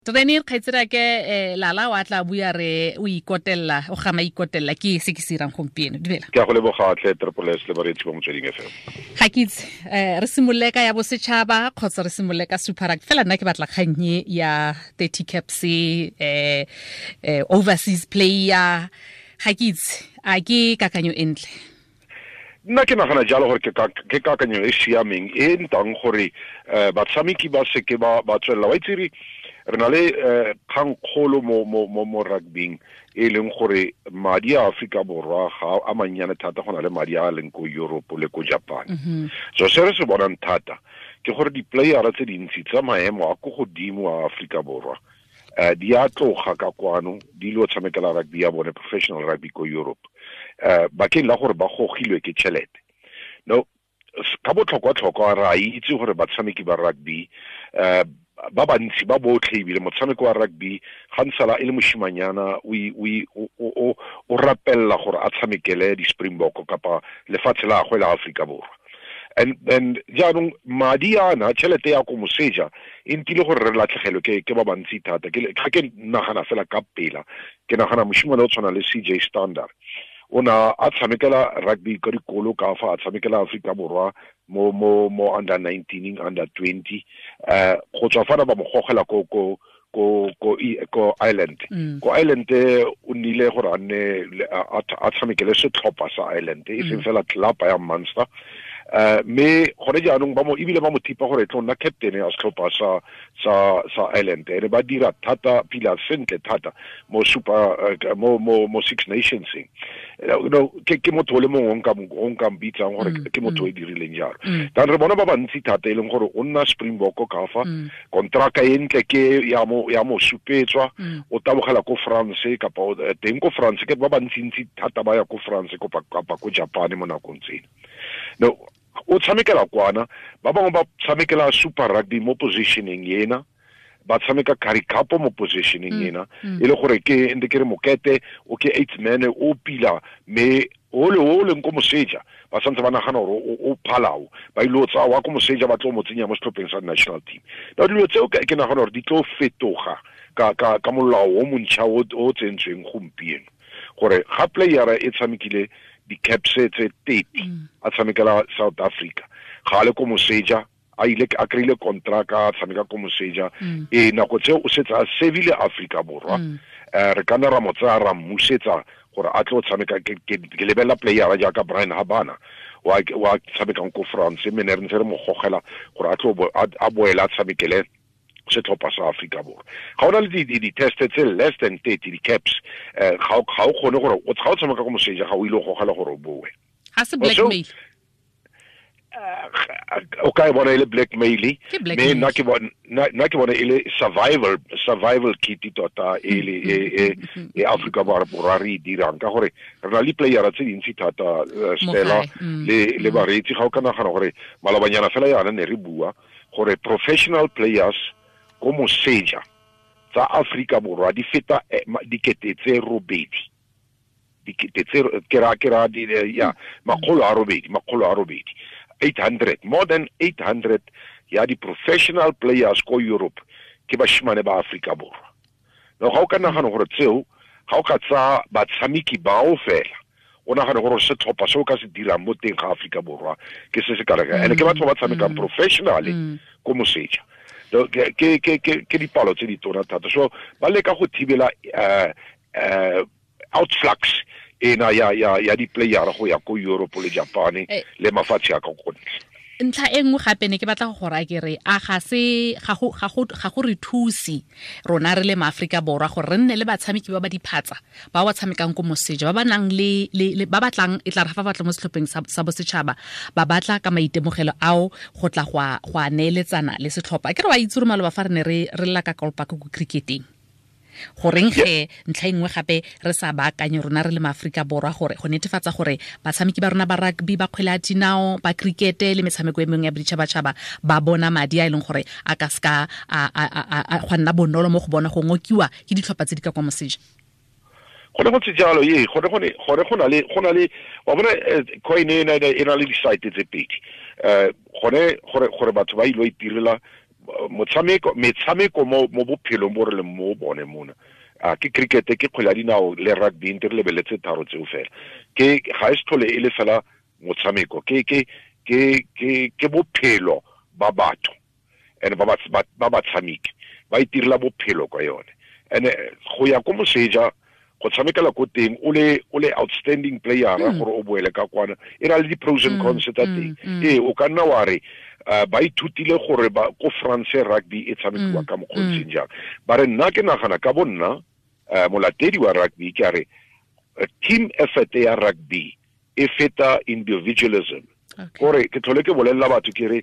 Treni kgaitsedi ke Lala wa tla bua re o ikotella, o gama ikotella ke se ke se irang gompieno. Dumela. Ke a go leboga tle Triple S le bareetsi ba Motsweding FM. Ga ke itse, re simolole ka ya bosetšhaba kgotsa re simolole ka Super Rugby. Fela nna ke batla kgang e ya 30 caps, overseas player. Ga ke itse, a ke kakanyo e ntle? Nna ke nagana jalo gore ke kakanyo e siameng e ntang gore batshameki ba seke ba tswelela. Wa itse re na le kgangkgolo mo rugbyng e leng gore madi a Afrika Borwa ga a mannyane thata go na le madi a leng ko Europe le ko Japan. So se re se bonang thata ke gore di-playera tse dintsi tsa maemo a ko godimo a Afrika Borwa di a tloga ka kwano di lo tshamekela rugby ya bone, professional rugby ko Europe, bakeng la gore ba gogilwe ke tšhelete. No, ka botlhokwa-tlhokwa re a itse gore batshameki ba rugby ba bantsi ba botlhe, ebile motshameko wa rugby ga ntsala e le moshimanyana o rapella gore a tshamekele di-Springbok kapa lefatshe la gagwe la Afrika Borwa. And jaanong madi ana, tšhelete ya ko moseja e ntile gore re latlhegelwe ke ba bantsi thata. Ga ke nagana fela ka pela, ke nagana moshimane o tshwana le CJ Stander. O na a tshamekela rugby ka dikolo ka fa, a tshamekela Afrika Borwa mo under 19, under 20. Go tswa fana ba mo gogela ko Ireland. Ko Ireland o nnile gore a nne a tshamekele setlhopha sa Ireland, e seng fela club ya Munster. Mme gone jaanong ba mo, ebile ba mo thipa gore e tlo nna captain ya setlhopha sa Ireland. Ene ba dira thata pila sentle thata mo super, mo Six Nations. No, ke motho o le mongwe o nka mbitsang gore ke motho o e dirileng jalo. Dan re bona ba bantsi thata e leng gore o nna Springbok ka fa, kontraka e ntle ke ya mo supetswa, o tabogela ko France kapa teng ko France, ke ba bantsintsi thata ba ya ko France kapa ko Japan mo nakong tsena. No, o tshamekela kwana, ba bangwe ba tshamekela Super Rugby mo positioning ena, ba tshameka Currie Cup mo positioning ena, e le gore ke ntse ke re mokete o ke eighth man o pila, mme o le o leng ko moseja ba santse ba nagana gore o phalao, ba ile o tsaya wa ko moseja ba tlo mo tsenya mo setlhopheng sa national team. Now dilo tseo ke nagana gore di tlo fetoga ka molao o montšha o tsentsweng gompieno, gore ga playera e tshamekile di-caps tse 30, a tshamekela South Africa, ga a le ko moseja, a ile a kry-ile contract a tshameka ko moseja, e nako tseo o setse a servile Afrika Borwa. Re ka nna ra mo tsaya ra mmusetsa gore a tlo tshameka. Ke lebelela playera jaaka Brian Habana wa tshamekang ko France, mme ne re ntse re mo gogela gore a tlo a boele a tshamekele setlhopha sa Afrika Borwa. Ga ona le di-test tse less than 30 di-caps, ga o kgone gore ga o tshameka ko moseja, ga o ile go gogela gore o boe. Ga se blackmail? O ka e bona e le blackmail, Ke blackmail. mme nna ke bona e le survival kit tota e le e Afrika Borwa re e dirang, ka gore re na le playera tse dintsi thata, Stella, Mo gae. Le bareetsi. Ga o ka nagana gore malobanyana fela yana ne re bua gore professional players ko moseja tsa Afrika Borwa di feta dikete tse robedi, dikete tse ke ra, ke ra di, ya, makgolo a robedi, makgolo a robedi, 800, more than 800 ya di professional players ko Europe ke bashimane ba Afrika Borwa. No, ga o ka nagana gore tseo, ga o ka tsa batshameki bao fela, o nagane gore setlhopha se o ka se dirang mo teng ga Afrika Borwa ke se se ka reka. Ene ke batho ba tshamekang professionally ko moseja. No, ke dipalo tse di tona thata. So ba leka go thibela outflux ena ya di-player go ya ko Europe le Japan le mafatshe a ka ko ntle. Ntlha e nngwe gape ne ke batla go go raya ke re, a ga se, ga go, ga go, ga go re thuse rona re le maAforika Borwa gore re nne le batshameki ba ba diphatsa ba ba tshamekang ko moseja, ba ba nang le, le, le, ba batlang, e tla re fa ba batla mo setlhopheng sa bosetšhaba, ba batla ka maitemogelo ao go tla go a neeletsana le setlhopha. Ke re wa itse gore maloba fa re ne re lla ka Kolpak ko cricketeng, goreng ge ntlha e nngwe gape re sa baakanye rona re le maAforika Borwa gore go netefatsa gore batshameki ba rona ba rugby, ba kgwele ya dinao, ba cricket le metshameko e mengwe ya boditšhabatšhaba ba bona madi a e leng gore a ka seka a gwa nna bonolo mo go bona go ngokiwa ke ditlhopha tse di ka kwa moseja. Gone go ntse jalo, ee, gone go ne, gone go na le, go na le, wa bona, coin e na, e na le di-side tse pedi. Gone gore batho ba ilo itirela Motshameko, metshameko mo bophelong bo re leng mo bone mona, a ke cricket, ke kgwele ya dinao le rugby, nte re lebeletse tharo tseo fela. Ke ga e se tlhole e le fela motshameko, ke bophelo ba batho, and ba batshameki ba itirela bophelo ka yone. And go ya ko moseja go tshamekela ko teng o le outstanding player gore o boele ka kwana, e na le di-pros and cons tsa teng. Ee, o ka nna wa re ba ithutile gore ba ko France rugby e tshamekiwa ka mokgwa o ntseng jang. Ba re nna ke nagana ka bo nna, molatedi wa rugby, ke a re team effort ya rugby e feta individualism. Kore ke tlhole ke bolelela batho ke re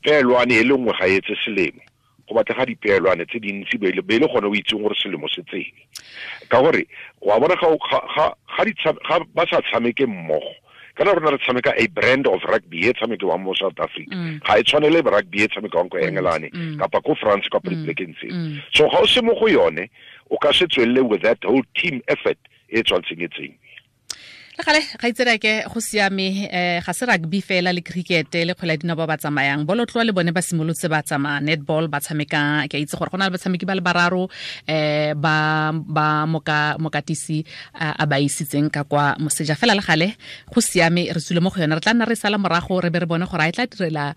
peelwane e le nngwe ga e etse selemo, go batlega dipeelwane tse dintsi be le gone o itseng gore selemo se tsene. Ka gore wa bona ga ba sa tshameke mmogo, kana rona re tshameka a brand of rugby e tshamekiwang mo South Africa, ga e tshwane le rugby e tshamekiwang ko Engelane kapa ko France kapa dipolekeng tseo. So ga o se mo go yone, o ka se tswelele with that whole team effort e tshwanetseng e tsengwe. Le gale ga itsereke go siame, ga se rugby fela le cricket le kgwele ya dinao ba ba tsamayang, bolotloa le bone ba simolotse ba tsamaya, netball ba tshameka. Ke a itse gore go na le batshameki ba le bararo ba mokatisi a ba isitseng ka kwa moseja. Fela le gale go siame, re tswile mo go yone, re tla nna re sala morago re be re bone gore a e tla direla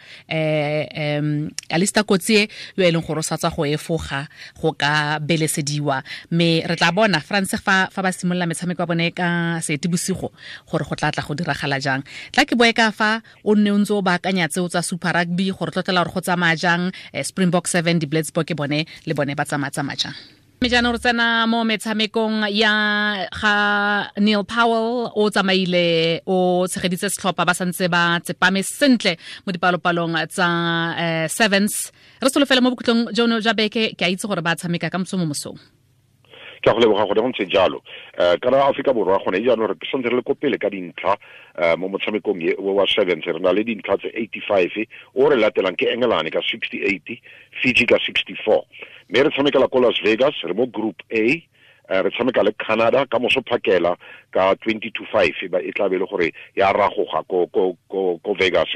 Alista Kotsie yo e leng gore o sa tswa go efoga go ka belesediwa. Mme re tla bona France fa ba simolola metshameko ya bone ka Seetebosigo gore go tla tla go diragala jang. Tla ke boe ka fa o nne o ntse o baakanya tseo tsa Super Rugby gore tlotlela gore go tsamaya jang, Springbok 7, di-Blitzbok ke bone le bone ba tsamaya jang. Mme jaanong re tsena mo metshamekong ya ga Neil Powell. O tsamaile o tshegeditse setlhopha, ba santse ba tsepame sentle mo dipalopalong tsa sevens. Re solofele mo bokhutlong jono jwa beke, ke a itse gore ba tshameka ka moso mo mosong. Ke a go leboga gone go ntse jalo. Kana Afrika Borwa gone jaanong re santse re le ko pele ka dintlha mo motshamekong wa sevens, re na le dintlha tse 85, o re latelang ke Engelane ka 68, Fiji ka 64. Mme re tshamekela ko Las Vegas, re mo group A, re tshameka le Canada ka moso phakela ka 20-5, e tla be le gore ya ragoga ko Vegas.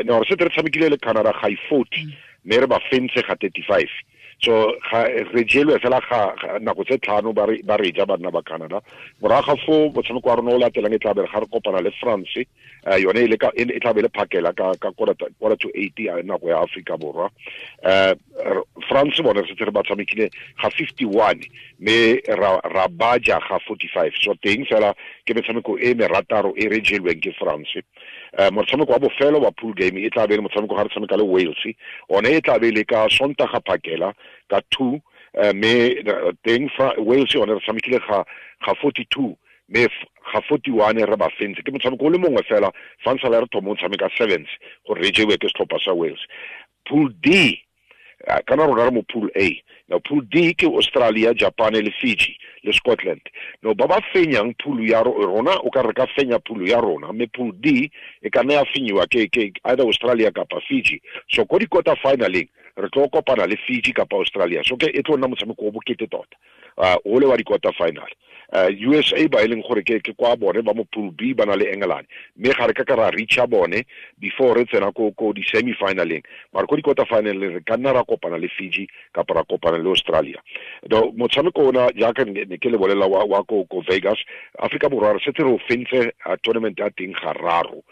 No re setse re tshamekile le Canada ga 40, mme re ba fentse ga 35. So re jelwe fela ga nako tse tlhano ba re ja banna ba Canada. Morago ga foo motshameko wa rona o latelang e tla be ga re kopana le France, yone e tla be le phakela ka 7:45 nako ya Afrika Borwa. France bone re setse re ba tshamekile ga 51, mme ra baja ga 45. So teng fela ke metshameko e merataro e re jelweng ke France. Motshameko wa bofelo wa pool game e tla be le motshameko ga re tshameka le Wales, one e tla be le ka Sontaga phakela ka 2, mme teng fa Wales yone re tshamekile ga 42, mme ga 41 re ba fentse. Ke motshameko o le mongwe fela fa ntse re thoma o tshameka sevens gore re jewe ke setlhopha sa Wales. Pool D, kana rona re mo pool A. Now pool D ke Australia, Japan le Fiji le Scotland. No ba ba fenyang pool ya rona, o ka re ka fenya pool ya rona, mme pool D e ka nna ya fenyiwa ke either Australia kapa Fiji. So ko di-quarter finaleng re tlo kopana le Fiji kapa Australia. So ke e tlo nna motshameko o bokete tota, o le wa di-quarter final. USA ba e leng gore ke kwa bone ba mo pool B ba na le England, mme ga re ka ra reacha bone before re tsena ko di-semi finaleng, mara ko di-quarter finaleng re ka nna ra kopana le Fiji kapa ra kopana le Australia. Motshameko ona jaaka ne ke le bolela wa ko Vegas, Afrika Borwa re setse re o fentse tournament ya teng gararo.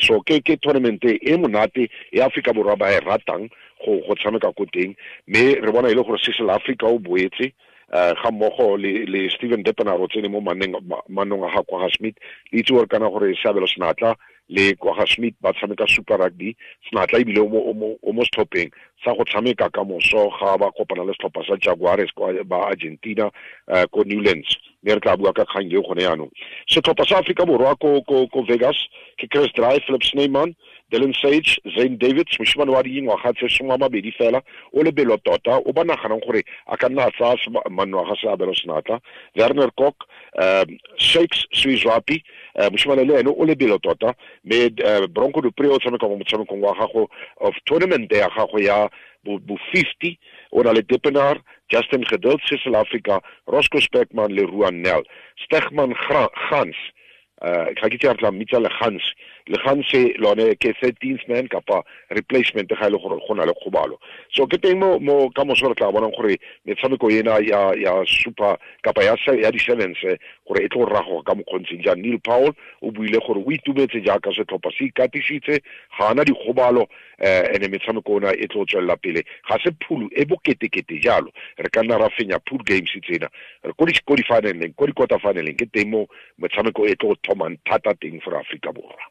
So ke tournament e monate e Afrika Borwa ba e ratang go tshameka ko teng, mme re bona e le gore Cecil Afrika o boetse ga mmogo le Steven Deppenaar o tsene mo manong a ga kwa ga Smith. Le itse gore kana gore Seabelo Senatla le kwa ga Smith ba tshameka Super Rugby. Senatla ebile o mo setlhopheng sa go tshameka ka moso ga ba kopana le setlhopha sa Jaguares kwa ba Argentina ko Newlands, mme re tla bua ka kgang eo gone jaanong. Setlhopha sa Afrika Borwa ko Vegas ke Chris Dry, Philip Snyman, Dylan Sage, Zane Davids, moshimane wa dingwaga tse 22 fela, o lebelo tota, o ba naganang gore a ka nna a tsaya manno a ga Seabelo Senatla, Werner Kok, Shakes Suizwapi, moshimane le ene o lebelo tota, mme Bronco Dupree o tshameka mo motshamekong wa gago of tournament ya gago ya bo 50, o na le Dippenaar, Justin Geduld, Cecil Africa, Roscoe Speckman le Ruan Nel. Stegman Gans, ga ke itse a re tla mmitsa le Gans, Leganse lone ke 13th man kapa replacement ga ile e gore go na le kgobalo. So ke teng mo mo ka moso re tla bonang gore metshameko ena ya super kapa ya di sevens gore e tlo rago ka mokgontseng jang. Neil Powell o buile gore o itumetse jaaka setlhopha se ikatisitse, ga ana dikgobalo, ene metshameko ona e tlo tswelela pele. Ga se phulu e boketekete jalo, re ka nna ra fenya pool games tsena re ko di finaleng, ko di quarter finaleng, ke teng mo metshameko e tlo thomang thata teng for Afrika Borwa.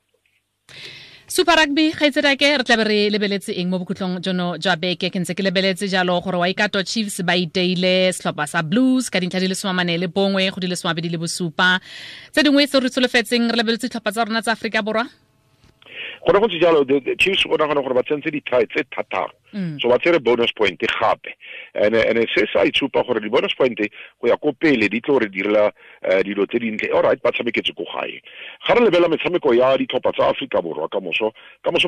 Super Rugby gaitsedake re tlabe re lebeletse eng mo bokhutlong jono jwa beke? Ke ntse ke lebeletse jalo gore Waikato Chiefs ba iteile setlhopha sa Blues ka dintlha di le 41 go di le 27. Tse dingwe tse re tsholofetseng re lebeletse ditlhopha tsa rona tsa Aforika Borwa. Gone go ntse jalo, the Chiefs o nagana gore ba tsentse di-try tse thataro, so ba tsere bonus point gape, ene se sa itshupa gore di-bonus point go ya ko pele di tlo re direla dilo tse dintle. All right, ba tshameketse ko gae. Ga re lebela metshameko ya ditlhopha tsa Aforika Borwa ka moso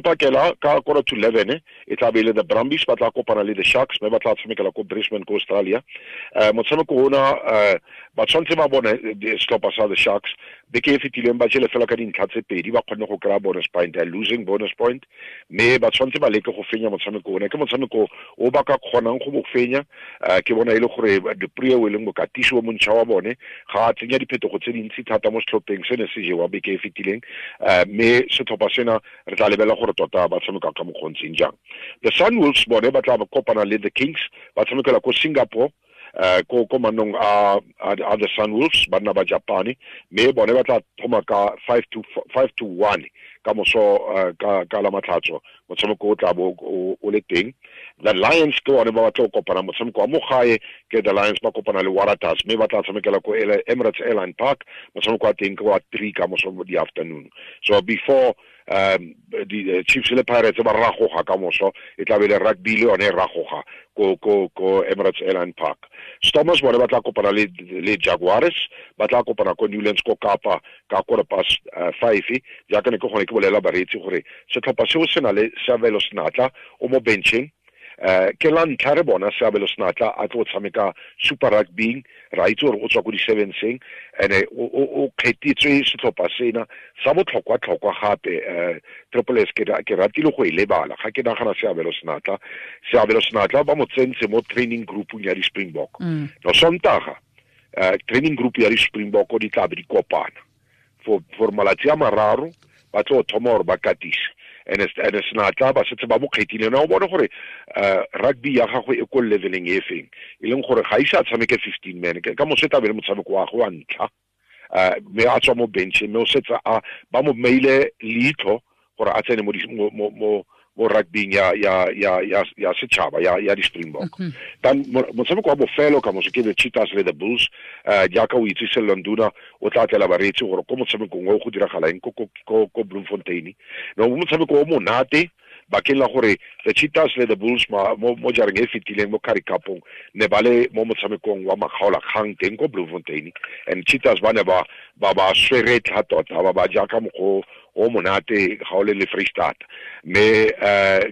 pakela ka 10:45 e tla be le the Brumbies ba tla kopana le the Sharks, mme ba tla tshamekela ko Brisbane ko Australia. Motshameko ona ba tshwanetse ba bone setlhopha sa the Sharks beke e fetileng ba jele fela ka dintlha tse pedi, ba kgonne go kry-a bonus point, a losing bonus point, mme ba tshwanetse ba leke go fenya motshameko ona. Ke motshameko o ba ka kgonang go bo fenya. Ke bona e le gore Duprie o e leng mokatisi o montšha wa bone ga a tsenya diphetogo tse dintsi thata mo setlhopheng se ne se jewa beke e fetileng, mme setlhopha sena re tla lebela gore tota ba tshameka ka mokgontseng jang. The Sunwolves bone ba tla kopana le the Kings, ba tshamekela ko Singapore, ko mannong a the Sunwolves, banna ba Japane, mme bone ba tla thoma ka 5-1 ka moso ka la matlhatso motshameko o tla bo o le teng. The Lions ke bone ba batla go kopana motshameko wa mo gae, ke the Lions ba kopana le Waratahs, mme ba tla tshamekela ko Emirates Airline Park, motshameko wa teng ke wa 3 ka moso di afternoon. So before the Chiefs le Pirates ba ragoga ka moso, e tla be le rugby le yone e ragoga ko Emirates Airline Park. Stormers bone ba tla kopana le Jaguars, ba tla kopana ko Newlands ko Kapa ka 5:15. Jaaka ne ke gone ke bolela bareetsi gore setlhopha seo se na le Seabelo Senatla o mo bencheng. Ke la ntlha re bona Seabelo Senatla a tlo tshameka Super Rugby, ra itse gore o tswa ko di-sevenseng, ene o kgethetswe setlhopha sena sa botlhokwa-tlhokwa gape. Triple S ke ratile go e lebala ga ke nagana Seabelo Senatla. Seabelo Senatla ba mo tsentse mo training groupung ya di-Springbok. No Sontaga training group ya di-Springbok di tla be di kopana for malatsi a mararo, ba tlo thoma gore ba katise. Ene Senatla ba setse ba mo kgethile. Na o bone gore rugby ya gagwe e ko leveleng e feng, e leng gore ga ise a tshameke 15 man ka moso e tla be le motshameko wa gagwe wa ntlha, mme a tswa mo bench, mme o setse a ba mo meile leitlho gore a tsene mo rugbyng ya setšhaba ya di-Springbok. Tan motshameko wa bofelo ka moso ke the Cheetahs le the Bulls. Jaaka o itse Sello Nduna o tla tlela bareetsi gore ko motshamekong o go diragala eng ko Bloemfontein. No motshameko o monate bakeng la gore the Cheetahs le the Bulls mo jareng e fetileng mo Currie Cupong ne ba le mo motshamekong wa makgaolakgang teng ko Bloemfontein, and Cheetahs ba ne ba ba sweretla tota, ba ba jaaka mokgwa o monate ga o le le Free State. Mme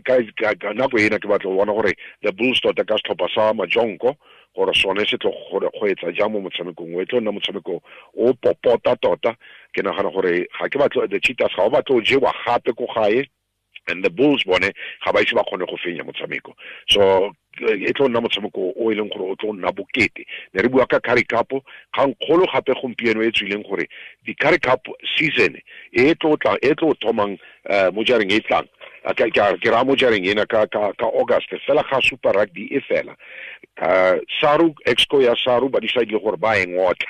ka nako ena ke batla go bona gore the Bulls tota ka setlhopha sa Majonko gore sone se tlo go etsa jang mo motshamekong o, e tlo nna motshameko o popota tota. Ke nagana gore ga ke batlo the Cheetahs ga o batlo jewa gape ko gae, and the Bulls bone ga ba ise ba kgone go fenya motshameko. So e tlo nna motshameko o e leng gore o tlo nna bokete. Ne re bua ka Currie Cup, kgang kgolo gape gompieno e tswileng gore di Currie Cup season e tlo tla e tlo thomang mo jareng e tlang, ke ra mo jareng ena ka August fela ga Super Rugby e fela. SARU, Exco ya SARU ba decide gore ba e ngotla,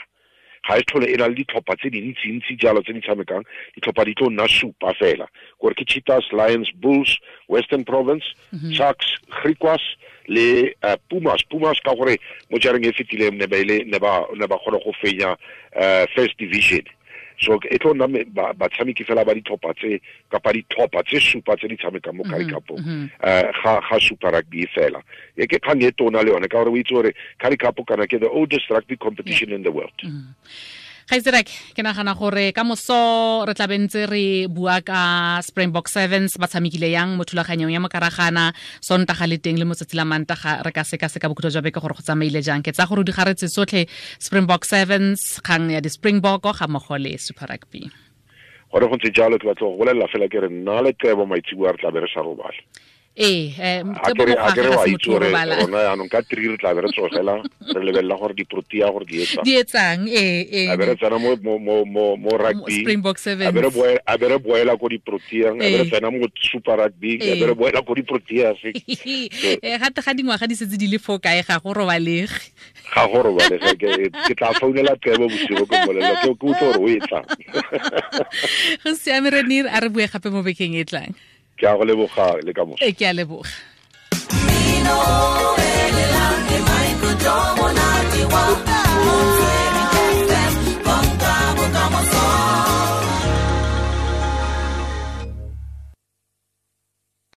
ga e tlhole e na le ditlhopha tse dintsi-ntsi jalo tse di tshamekang, ditlhopha di tlo nna supa fela, gore ke Cheetahs, Lions, Bulls, Western Province, Sharks, Griquas le Pumas. Pumas ka gore mo jareng e fetileng ne ba kgone go fenya First Division. So e tlo nna batshameki fela ba ditlhopha tse kapa ditlhopha tse supa tse di tshamekang mo Currie Cupong ga Super Rugby fela. E ke kgang e tona le yone ka gore o itse gore Currie Cup kana ke the oldest rugby competition in the world. Gaitsedake, ke nagana gore ka moso re tla bentse re bua ka Springbok Sevens ba tshamekile yang mo thulaganyong ya mokaragana, Sontaga le teng le motsatsi la Mantaga re ka sekaseka bokhutlo jwa beke gore go tsamaile jang. Ke tsa gore di garetse tsotlhe Springbok Sevens, kgang ya di-Springbok ga mmogo le Super Rugby. Gore go ntse jalo, ke batla go bolelela fela ke re nna le Tebo maitseboa re tla be re sa robale. Ee, A kere wa itse gore rona yaanong ka 3 re tla be re tsogela, re lebelela gore diprotea gore di etsang. Di etsang, ee. A be re tsena mo rugby. Springbok Sevens. A be re boela ko diproteang, a be re tsena mo Super Rugby, a be re boela ko diproteas. Ee, gate ga dingwaga di setse di le fo kae ga go robalege. Ga go robalege, ke tla founela Tebo bosigo ke mmolelela, ke utlwe gore o e tlang. Go siame Renir, a re bue gape mo bekeng e tlang. Ke a go leboga le ka moso. Ke a leboga.